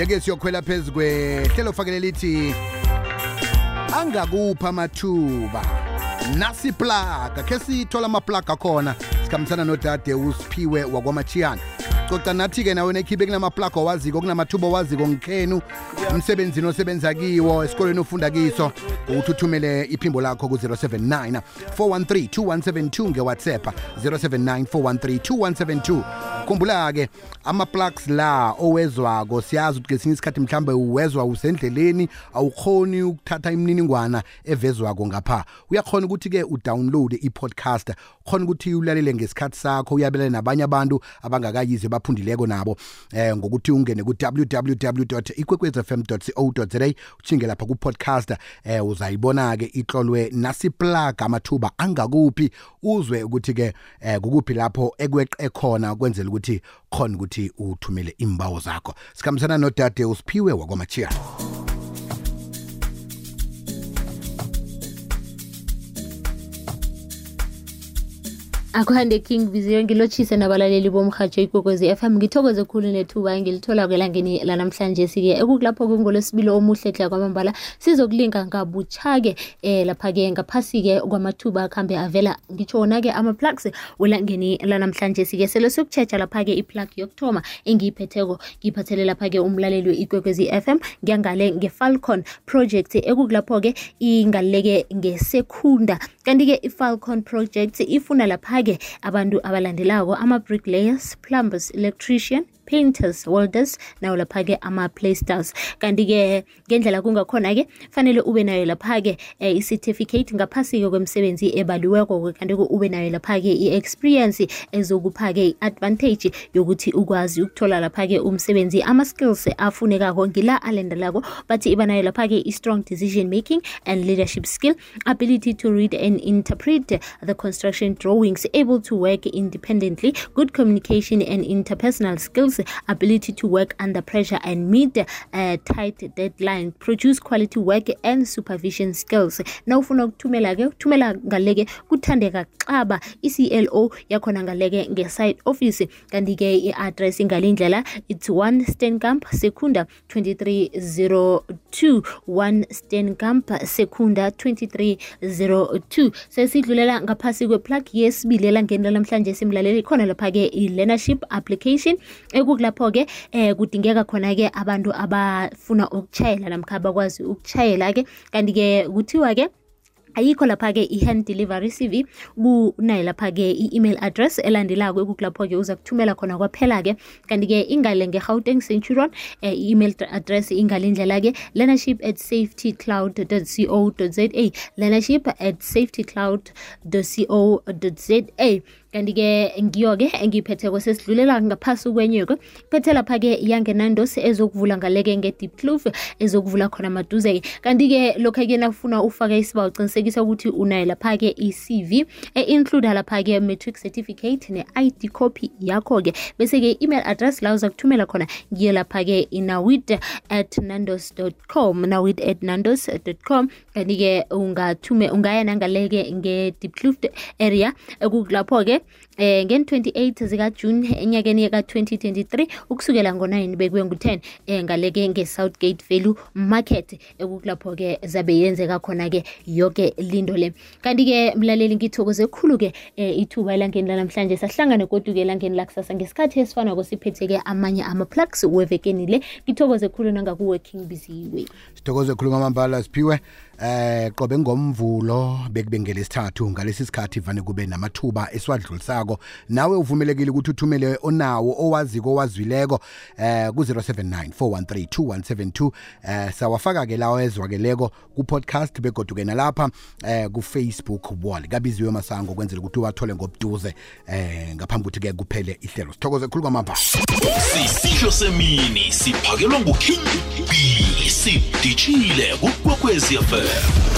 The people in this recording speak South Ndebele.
Yeke siyokhwela phezukwe hlelo fakele lithi angakupha amathuba nasi plaga ke sithola amaplaga khona sikhambisana nodade uSiphiwe wakwamachiyana coca nathi ke nawe nekhibe kunamaplaga owaziko kunamathuba owaziko ngikhenu umsebenzini osebenza kiwo esikoleni ofunda kiso uthuthumele iphimbo lakho ku 079 413 2172 ngeWhatsApp 079 413 2172 khumbula ke ama-plugs la owezwako siyazi ukuthi ngesinye isikhathi mhlambe uwezwa usendleleni awukhoni ukuthatha imininingwana evezwako ngapha uyakhona ukuthi ke udownload i-podcast khona ukuthi ulalele ngesikhathi sakho uyabelane nabanye abantu abangakayize baphundileko nabo ngokuthi ungene ku www.ikwekwezfm.co.za uchinge lapha ku podcast uzayibona ke ihlolwe nasi plug amathuba angakuphi uzwe ukuthi ke kukuphi lapho ekweqe khona kwenzela ukuthi khona ukuthi uthumele imbawo zakho sikhambisana nodade uSiphiwe wakwamachiyana. Akuhande King Viziyo ngilotshise nabalaleli bomhajo ikwekwezi FM ngithokoze khulu nethuba ngilithola kwelangeni lanamhlanje sike ekukulapho kungolesibilo omuhle hle kwamambala sizokulinga ngabuchake lapha ke ngaphasi ke kwamathuba akhambe avela ngitshona ke ama plugs welangeni lanamhlanje sike sele sokuchecha lapha ke iplug yokthoma engiyiphetheko ngiphathele lapha ke umlaleli weikwekwezi FM ngiyangale ngeFalcon project ekukulapho ke ingaleke ngesekunda kanti ke iFalcon project ifuna lapha ke abantu abalandelako ama-bricklayers, plumbers, electrician, painters, welders nawo lapha ke ama-playsters kanti ke ngendlela kungakhona ke fanele ube nayo lapha ke i-certificate ngaphasi ke kwemsebenzi ebaliweko kanti ube nayo lapha ke i-experience ezokupha ke i-advantage yokuthi ukwazi ukuthola lapha ke umsebenzi ama-skills afunekako ngila alendelako bathi iba nayo lapha ke i-strong decision making and leadership skill, ability to read and interpret the construction drawings, able to work independently, good communication and interpersonal skills, ability to work under pressure and meet tight deadline, produce quality work and supervision skills. Now ufuna ukuthumela ke uthumela ngaleke kuthandeka xaba iCLO yakhona ngaleke ngeside office kanti ke i-address ngalindlela it's 1 Steenkamp Secunda 2302 1 Steenkamp Secunda 2302 sesidlulela ngaphasi kweplug yesibili elangeni namhlanje simlaleli khona lapha ke i-learnership application kulapho ke kudingeka khona ke abantu abafuna ukuchayela namkha bakwazi ukuchayela ke kanti ke kuthiwa ke ayikho lapha ke i-hand delivery CV kunayo lapha ke i-email address elandelako ekukulapho ke uza kuthumela khona kwaphela ke kanti ke ingale ngeGauteng Centurion email address ingalindlela ke learnership@safetycloud.co.za learnership@safetycloud.co.za kanti ke ngiyo ke engiyiphetheko sesidlulela ngaphasi kwenyoko phethe lapha ke yangenandos ezokuvula ngaleke ngeDeep Kloof ezokuvula khona maduze kanti ke lokho ke nakufuna ufaka isibawo uqinisekisa ukuthi unayo lapha ke iCV include lapha ke matric certificate ne-ID copy yakho ke bese ke email address la uza kuthumela khona ngiyo lapha ke nawid@nandos.com nawid@nandos.com kanti ke ungaya nangaleke ngeDeep Kloof area ekukulapho ke ngen-28 zika June enyakeni ka 2023 ukusukela ngo9 bekuye ngo10 ngaleke ngeSouthgate Value Market ekukulapho ke zabe yenzeka khona ke yonke lindo le kanti ke mlaleli ngithokoze khulu ke ithuba elangeni namhlanje sahlangana kodwa ke elangeni lakusasa ngesikhathi esifana kosiphethe ke amanye ama-plugs wevekeni le ngithokoze khulu nangaku working busy way sithokoze khulu ngamambala Siphiwe qobe ngomvulo bekube ngelesithathu ngalesi sikhathi vane kube namathuba eswadlulisako nawe uvumelekile ukuthi uthumele onawo owaziko owazwileko ku 079 413 2172 sawafaka ke lawo ezwakeleko ku podcast begoduke nalapha ku Facebook wall kabiziwe masango kwenzela ukuthi uwathole ngobuduze ngaphambi ukuthi ke kuphele ihlelo sithokoze khulu kwamambala sisihlo semini siphakelwa nguKing B sidijile ku Kwekwezi FM.